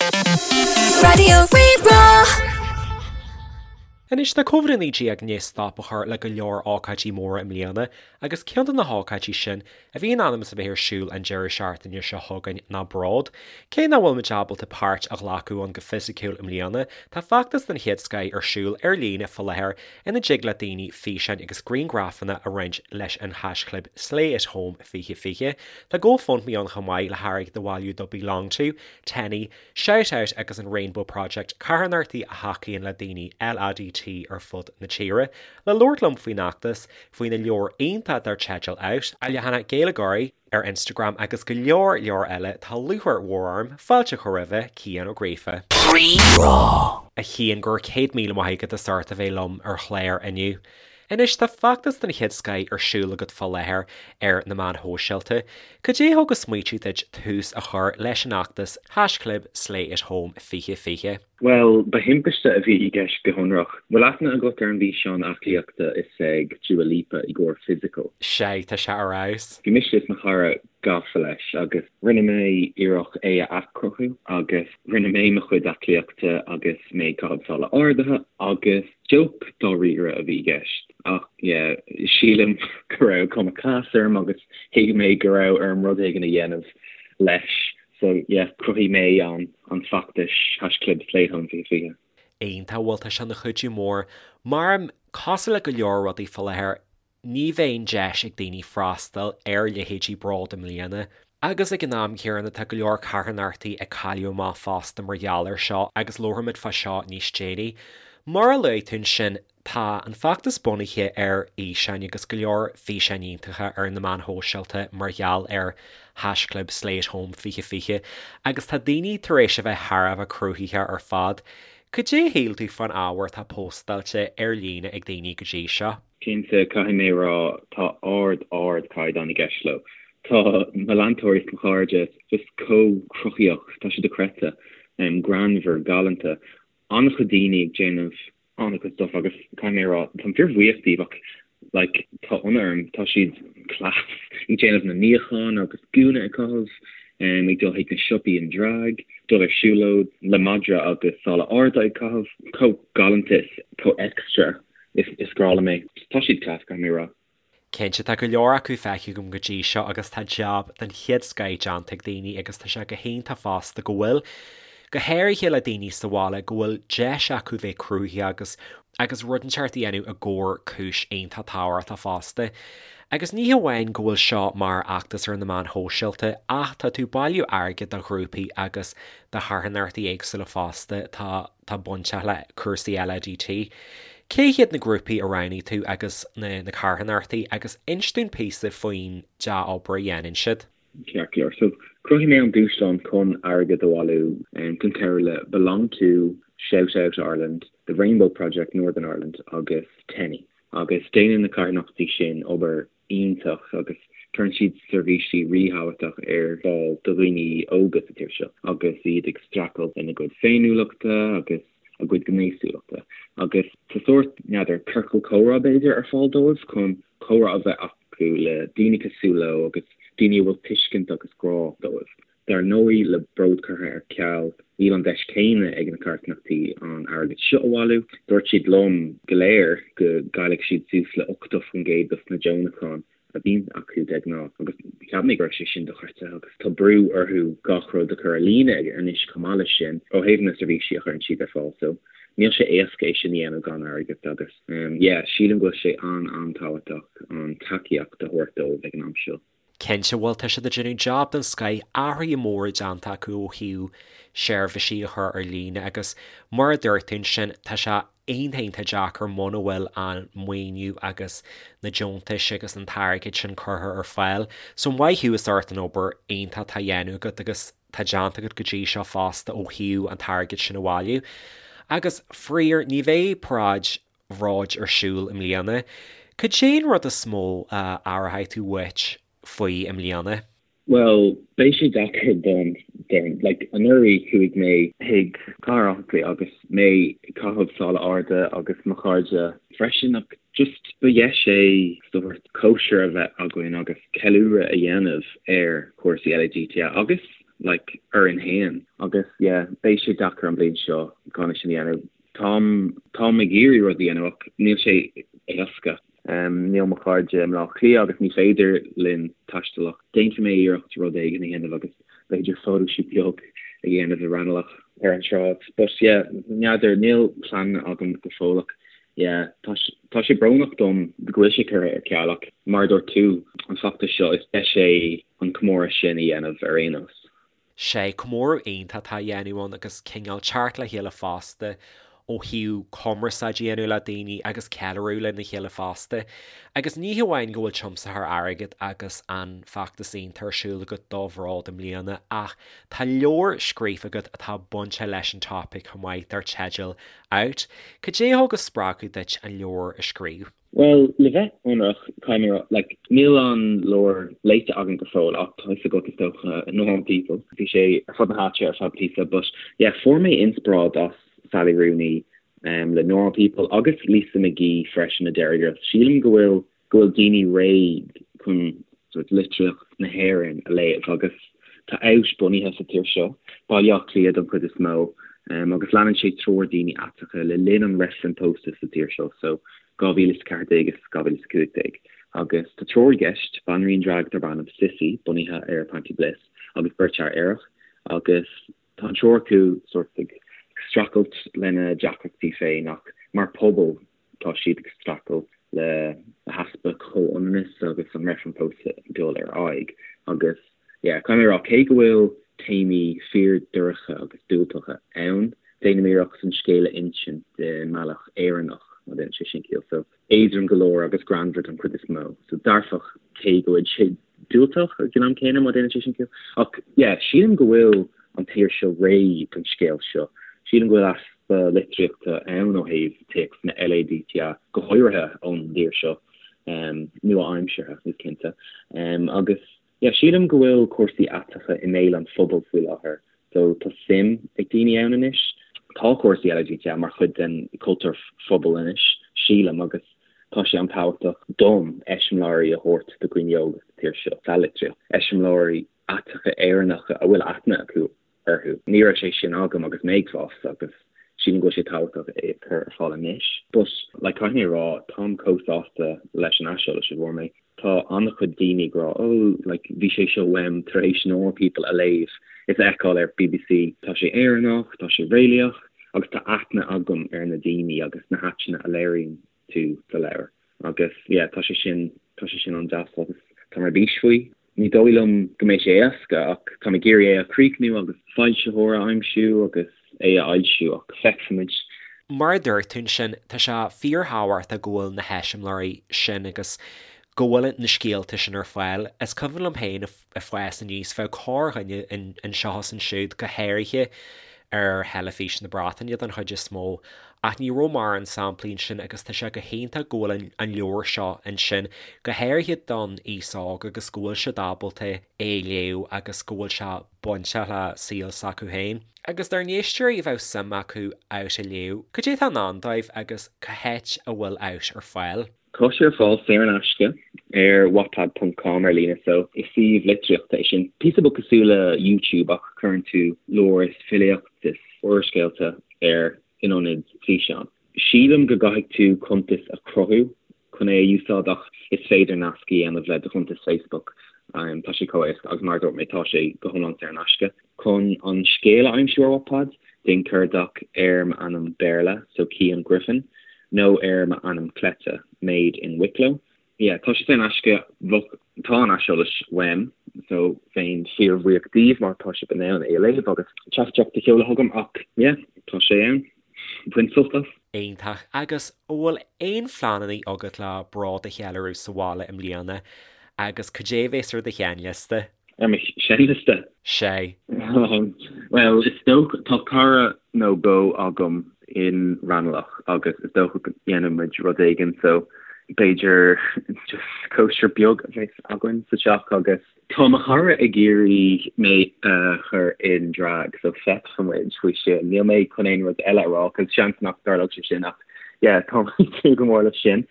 Raidió Rí-Rá. Anois, tá Covid-19 i ndiaidh stop a chur le go leor ócáidí móra i mbliana agus ceann de na hócáidí sin a bhí in ainm is a bheith ar siúl an deireadh seachtaine seo chugainn ná Bród. Cé nach bhfuil muid ábalta páirt a ghlacadh ann go fisiciúil i mbliana, tá feachtas den chéad scoith ar siúl ar líne fá láthair ina dtig le daoine físeáin agus grianghrafanna a roinnt leis an haischlib SlayAtHome2020. Tá GoFundMe ann chomh maith le hairgead a bhailiú do BeLonG To, Teni, Shout Out agus an Rainbow Project, carthanachtaí a thacaíonn le daoine LADT ar fud na tíre. Le labhairt liom faoin fheachtas, faoina leabhar iontach dar teideal Out, a leathanach Gaeilgeoirí, ar Instagram agus go leor leor eile, tá lúcháir mhór orm fáilte a chur roimhe, Cian Ó Gríofa. Rí-Rá. A Chian, go raibh 100,000 maith agat as ucht a bheith liom ar chlár inniu. Anois, tá feachtas den chéad scoith ar siúl agat fá láthair ar na meáin shóisialta. Cad é a thug an smaoitiú duit tús a chur leis an fheachtas haischlib SlayAtHome2020? Bhuel, ba thimpiste a bhí i gceist go hionrach. Bhfuil aithne agat ar an bhfíseán aclaíochta is ag Dua Lipa i gcomhair Physical? Sea, tá sé ar fheabhas. Bhí mise is mo chara gafa leis agus rinne mé iarracht é a athchruthú agus rinne mé mo chuid aclaíochta agus mé ag caitheamh sála ardaithe agus joke dáiríre a bhí i gceist ach yeah, sílim go raibh cuma class orm agus thuig mé go raibh orm rud éigin a dhéanamh leis. So yeah, chruthaigh mé an an feachtas haischlib SlayAtHome2020. Iontach, bhuel tá sé ina chuidiú mór. Mar, cosúil le go leor rudaí fá láthair, ní bheidh an deis ag daoine freastal ar leithéidí Bród i mbliana. Agus ag an am céanna tá go leor carthanachtaí ag cailleadh amach fosta mar gheall air seo agus labharfaimid fá seo níos déanaí. Mar a luaigh tú ansin, Tá an feachtas bunaithe ar fhíseáin agus go leor físeáin iontacha ar na meáin shóisialta mar gheall ar haischlib SlayAtHome2020 agus tá daoine tar éis a bheith thar a bheith cruthaitheach ar fad. Cad é a shíl tú fán ábhar atá póstáilte ar líne ag daoine go dtí seo? Cinnte, caithfidh mé a rá, tá ard, ard caighdeán i gceist leo. Tá mo leantóirí is mo chairde just chomh cruthaíoch, tá sé dochreidte, greannmhar, galánta. An-chuid daoine ag déanamh an-chuid stuff agus caithfidh mé a rá, táim fíor-bhuíoch díobh ach like tá ionadh orm, tá siad class ag déanamh na níochán agus gúna ag caitheamh, ag dul chuig na siopaí in drag, dul ar siúlóid le madra agus sála arda ag caitheamh, chomh galánta is chomh extra is is grá liom é. Tá siad class caithfidh mé a rá. Cinnte, tá go leor acu feicthe agam go dtí seo agus tá jab den chéad scoith déanta ag daoine agus tá sé go hiontach fosta go bhfuil, go háirithe le daoine sa bhaile, go bhfuil deis acu bheith cruthaitheach agus agus rud inteacht a dhéanamh i gcomhair cúis iontach tábhachtach fosta. Agus ní hamháin go bhfuil seo mar fheachtas ar na meáin shóisialta ach tá tú ag bailiú airgid do ghrúpaí agus do charthanachtaí éagsúla fosta, tá. atá bainteach le cúrsaí LADT. Cé hiad na grúpaí a roghnaigh tú agus na na carthanachtaí agus inis dúinn píosa faoin dea-obair a dhéanann siad. Ceart go leor. So, chruthaigh mé an dúshlán chun airgead a bhailiú chun cabhrú le Belong To, Shout Out Ireland, The Rainbow Project Northern Ireland agus Teni. Agus déanann na carthanachtaí sin obair iontach agus cuireann siad seirbhísí ríthábhachtach ar fáil do dhaoine óga sa tír seo agus iad ag streachailt lena gcuid féiniúlachta agus a gcuid gnéasúlachta. Agus tá sórt, n'fheadar, ciorcal comhrá b'fhéidir ar fáil dóibh chun comhrá a bheith acu le daoine cosúil leo agus daoine a bhfuil tuiscint agus grá dóibh. Dar ndóigh, le Bród curtha ar ceal, níl an deis céanna ag na carthanachtaí an airgead seo a bhailiú. Dúirt siad liom go léir go gcaillfidh siad suas le 80% dos na deonacháin a bhíonn acu de ghnáth agus cheap mé go raibh sé sin dochreidte agus tá brú orthu gach rud a chur ar líne anois chomh maith leis sin ó thaobh na seirbhísí a chuireann siad ar fáil so níl sé éasca é sin a dhéanamh gan airgead agus yeah sílim go bhfuil sé an-an-tábhachtach an tacaíocht a thabhairt dóibh ag an am seo. Cinnte, bhuel, tá siad ag déanamh jab den scoith, athruithe móra déanta acu ó thaobh seirbhísí a chur ar líne agus mar a dúirt tú ansin, tá sé iontach iontach deacair muna bhfuil an maoiniú agus na deontais agus an t-airgead sin curtha ar fáil. So maith thú as ucht an obair iontach atá á dhéanamh agat agus tá déanta agat go dtí seo fosta ó thaobh an t-airgead sin a bhailiú. Agus faraor, ní bheidh paráid Bhróid ar siúl i mbliana. Cad é an rud is mó a aireoidh tú uait faoi i mbliana? Bhuel, beidh sé deacair dom, déarfainn. Like, anuraidh chuaigh mé chuig Cathair Átha Cliath agus mé ag caitheamh sála arda agus mo chairde freisin ach just ba dheis é sórt cóisir a bheith againn agus ceiliúradh a dhéanamh ar chúrsaí LADT agus. like orainn fhéin. Agus yeah, beidh sé deacair an bhliain seo gan é sin a dhéanamh. Táim, táim ag iarraidh rud a dhéanamh ach níl sé éasca. Níl mo chairde i mBleá Cliath agus ní féidir linn taisteal ach déanfaidh mé iarracht rud éigin a dhéanamh agus b'fhéidir photoshoot beag a dhéanamh i Raghnallach ar an tsráid. But yeah, n'fheadar, níl plean agam go fóill ach yeah, tá, tá sé brónach dom go bhfuil sé curtha ar ceal ach mar a dúirt tú, an feachtas seo, is deis é an comóradh sin a dhéanamh ar aon nós. Sé comóradh iontach atá á dhéanamh ann agus cineál teacht le chéile fosta ó thaobh cumarsáid a dhéanamh le daoine agus ceiliúradh lena chéile fosta. Agus ní hamháin go bhfuil tiomsaitheoir airgid agus an feachtas iontach ar siúl agat do Bhród i mbliana ach tá leabhar scríofa agat atá bainteach leis an topaic chomh maith dar teideal Out. Cad é a thug an spreagadh duit an leabhar a scríobh? Bhuel, le bheith ionraic, caithfidh mé a rá, like, níl an leabhar léite agam go fóill ach tá fhios agat is dócha, Normal People, bhí sé ar fud na háite ar feadh píosa but yeah, fuair mé inspioráid as Sally Rooney um, le Normal People agus Lisa McGee freisin le Derry Girls. Sílim go bhfuil go bhfuil daoine réidh chun sort litríocht na hÉireann a léamh agus tá Out bunaithe sa tír seo, Baile Átha Cliath don chuid is mó, um, agus leanann sé triúr daoine aiteacha le linn an reifreann pósta sa tír seo so 2014 is 2015 agus tá triúr i gceist, banríon drag darb ainm Sissy, bunaithe ar Panti Bliss, agus beirt fhear aerach agus tá an triúr acu sort ag streachailt lena deacrachtaí féin ach mar pobal tá siad ag streachailt le heaspa comhionannas agus an reifreann pósta ag dul ar aghaidh agus yeah, caithfidh mé a rá cé go bhfuil téamaí fíor-dorcha agus diúltacha ann, déanaim iarracht an scéal a insint i mbealach Éireannach, má dhéanann sé sin ciall. So, éadrom go leor agus greannmhar don chuid is mó. So, dearfach cé go bhfuil sé diúltach ag an am céanna, má dhéanann sé sin ciall. Ach, yeah, sílim go bhfuil an tír seo réidh don scéal seo. Sílim go bhfuil easpa litríochta ann ó thaobh téacsanna LADTA, go háirithe ón dtír seo, nua-aimseartha, is cinnte. Agus, Yeah, sílim go bhfuil cúrsaí aiteacha i mbéal an phobail faoi láthair, so tá suim ag daoine ann anois. Tá cúrsaí LADTA mar chuid den chultúr phobail anois, sílim, agus tá sé an-tábhachtach dom eiseamláirí a thabhairt do dhaoine óga sa tír seo, sa litríocht, eiseamláirí aiteacha Éireannacha a bhfuil aithne acu orthu. Ní raibh sé sin agam agus mé ag fás agus sílim go bhfuil sé tábhachtach é a chur ar fáil anois. But, like, caithfidh mé a rá, táim chomh sásta leis an aiseolas a bhfuair mé. Tá an-chuid daoine ag rá, oh, like, bhí sé seo uaim tar éis Normal People a léamh is a fheiceáil ar BBC. Tá sé Éireannach, tá sé réalaíoch agus tá aithne agam ar na daoine agus na háiteanna a léiríonn tú sa leabhar. Agus, yeah, tá sé sin, tá sé sin an-deas agus táim ar bís faoi. Ní dóigh liom go mbeidh sé éasca ach táim ag iarraidh é a chríochnú agus foilsitheoir a aimsiú agus é a fhoilsiú ach feicfimid. Mar a dúirt tú ansin, tá sé fíorthábhachtach go bhfuil na heiseamláirí sin agus go bhfuil na scéalta sin ar fáil. Is cuimhin liom féin ag fás aníos, bheadh corrdhuine anseo is ansiúd, go háirithe ar theilifís na Breataine den chuid is mó, ach ní raibh mórán samplaí ansin agus tá sé go hiontach go bhfuil an leabhar seo ansin, go háirithe don aos óg agus go bhfuil siad ábalta é a léamh agus go bhfuil sé bainteach le saol s'acu féin. Agus dár n-éisteoirí a bheadh suim acu Out a léamh, cad é atá i ndán dóibh agus cá háit a bhfuil Out ar fáil? Tá sé ar fáil saor in aisce ar wattpad ponc com ar líne so is suíomh litríochta é sin. Píosa beag cosúil le YouTube ach cuireann tú leabhair is filíocht is úrscéalta air in ionad físeán. Sílim go gcaithfidh tú cuntas a chruthú chun é a úsáid ach is féidir nasc a dhéanamh le do chuntas Facebook. Tá sé chomh éasca agus mar a dúirt mé tá sé go hiomlán saor in aisce. Chun an scéal a aimsiú ar Wattpad, déan cuardach ar m'ainm Béarla, so Cian Griffin, nó ar m'ainm cleite, Made in Wicklow. Yeah, tá sé saor in aisce, bheadh, tá an aiseolas uaim, so bheinn fíorbhuíoch díbh má tá sibh in ann é a léamh agus teachtaireacht a sheoladh chugam ach yeah, tá sé ann. Bain sult as. Iontach. Agus an bhfuil aon phleananna agat le Bród a cheiliúradh sa bhaile i mbliana agus cad é a bhéas ar do sheinnliosta? Ar mo sheinnliosta? Sé. Bhuel, is dócha, tá cara nó dhó agam in Raghnallach agus is dócha go ndéanfaidh muid rud éigin so b'fhéidir just cóisir beag a bheas againn sa teach agus tá mo chara ag iarraidh mé a chur in drag so feicfidh muid faoi sin. Níl mé chun aon rud eile a rá cos seans nach dtarlódh sé sin ach yeah tá mé ag súil go mór leis sin.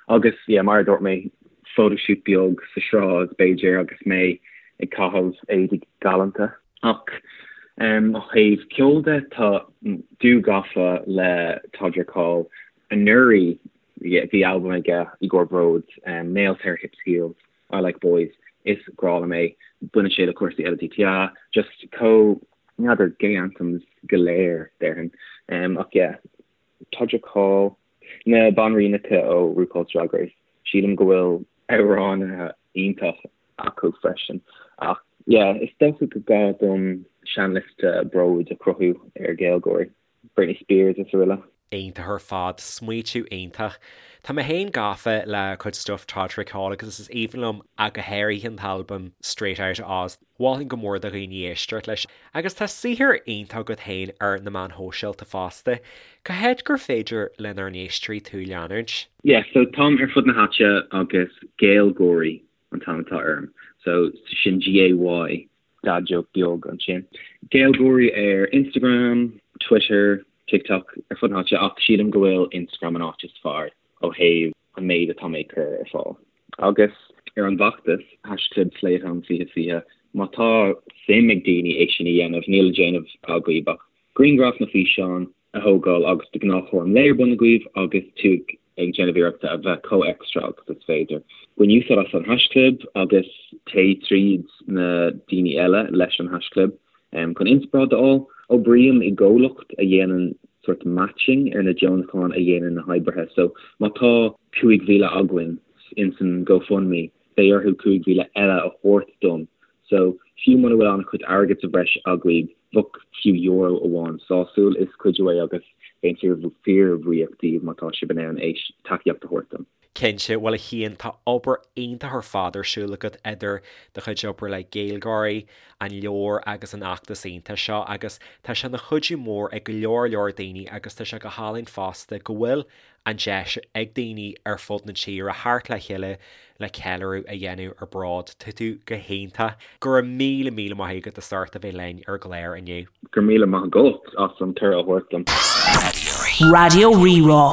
Agus yeah mar a dúirt mé, photoshoot beag sa sráid, b'fhéidir, agus mé ag caitheamh éadaí galánta. Ach ó thaobh ceoil de, tá dú gafa le Todrick Hall. Anuraidh bhí albam aige i gcomhair Bród, Nails Hair Hips Heels, I Like Boys, is grá liom é. Baineann sé le cúrsaí LADTA, just chomh, n'fheadar, gay anthems go léir, déarfainn. Ach yeah, Todrick Hall, na banríonacha ó RuPaul's Drag Race, sílim go bhfuil amhránaithe iontach acu freisin. Ach yeah, is dócha go gá dom seanliosta Bróid a chruthú ar GaelGÁIRÍ, Britney Spears is araile. Iontach ar fad, smaoitiú iontach. Tá mé féin gafa le cuid stuff Todrick Hall agus is aoibhinn liom ach go háirithe an t-albam Straight Outta Oz. Mholfainn go mór do dhaoine éisteacht leis. Agus tá saothar iontach agat féin ar na meáin shóisialta fosta. Cá háit gur féidir lenár n-éisteoirí tú a leanúint? Yeah, so táim ar fud na háite agus GaelGÁIRÍ an t-ainm atá orm. So sin G-A-Y, dad joke beag ansin. GaelGÁIRÍ ar Instagram, Twitter, TikTok, ar fud na háite ach sílim go bhfuil Instagram an áit is fearr ó thaobh an méid atá mé ag cur ar fáil. Agus ar an bhfeachtas, haischlib SlayAtHome 2020, má tá suim ag daoine é sin a dhéanamh, níl le déanamh agaibh ach grianghraf nó físeán a thógáil agus de ghnáth cúram lae ar bun agaibh agus tú ag déanamh iarrachta a bheith chomh extra agus is féidir. Bain úsáid as an haischlib agus téigh tríd na daoine eile leis an haischlib chun inspioráid a fháil. Oibrím i gcomhlacht a dhéanann sort matching ar na deonacháin a dhéanann na hoibrithe so má tá 5,000 againn insan GoFundMe beidh orthu 5,000 eile a thabhairt dom so fiú muna bhfuil an-chuid airgead sa bhreis agaibh bheadh fiú euro amháin sásúil, is cuidiú é agus bheinn fíor-bhuíoch díbh má tá sibh in ann é tacaíocht a thabhairt dom. Cinnte, bhuel a Chian, tá obair iontach ar fad ar siúl agat idir do chuid oibre le GaelGÁIRÍ, an leabhar agus an fheachtas iontach seo agus tá sé ina chuidiú mór ag go leor leor daoine agus tá sé go hálainn fosta go bhfuil an deis ag daoine ar fud na tíre theacht le chéile le ceiliúradh a dhéanamh ar Bród. Tá tú go hiontach. Go raibh míle míle maith agat as ucht a bheith linn ar an gclár inniu. Go raibh míle maith agat as an cuireadh a thabhairt dom. Raidió Rí-Rá.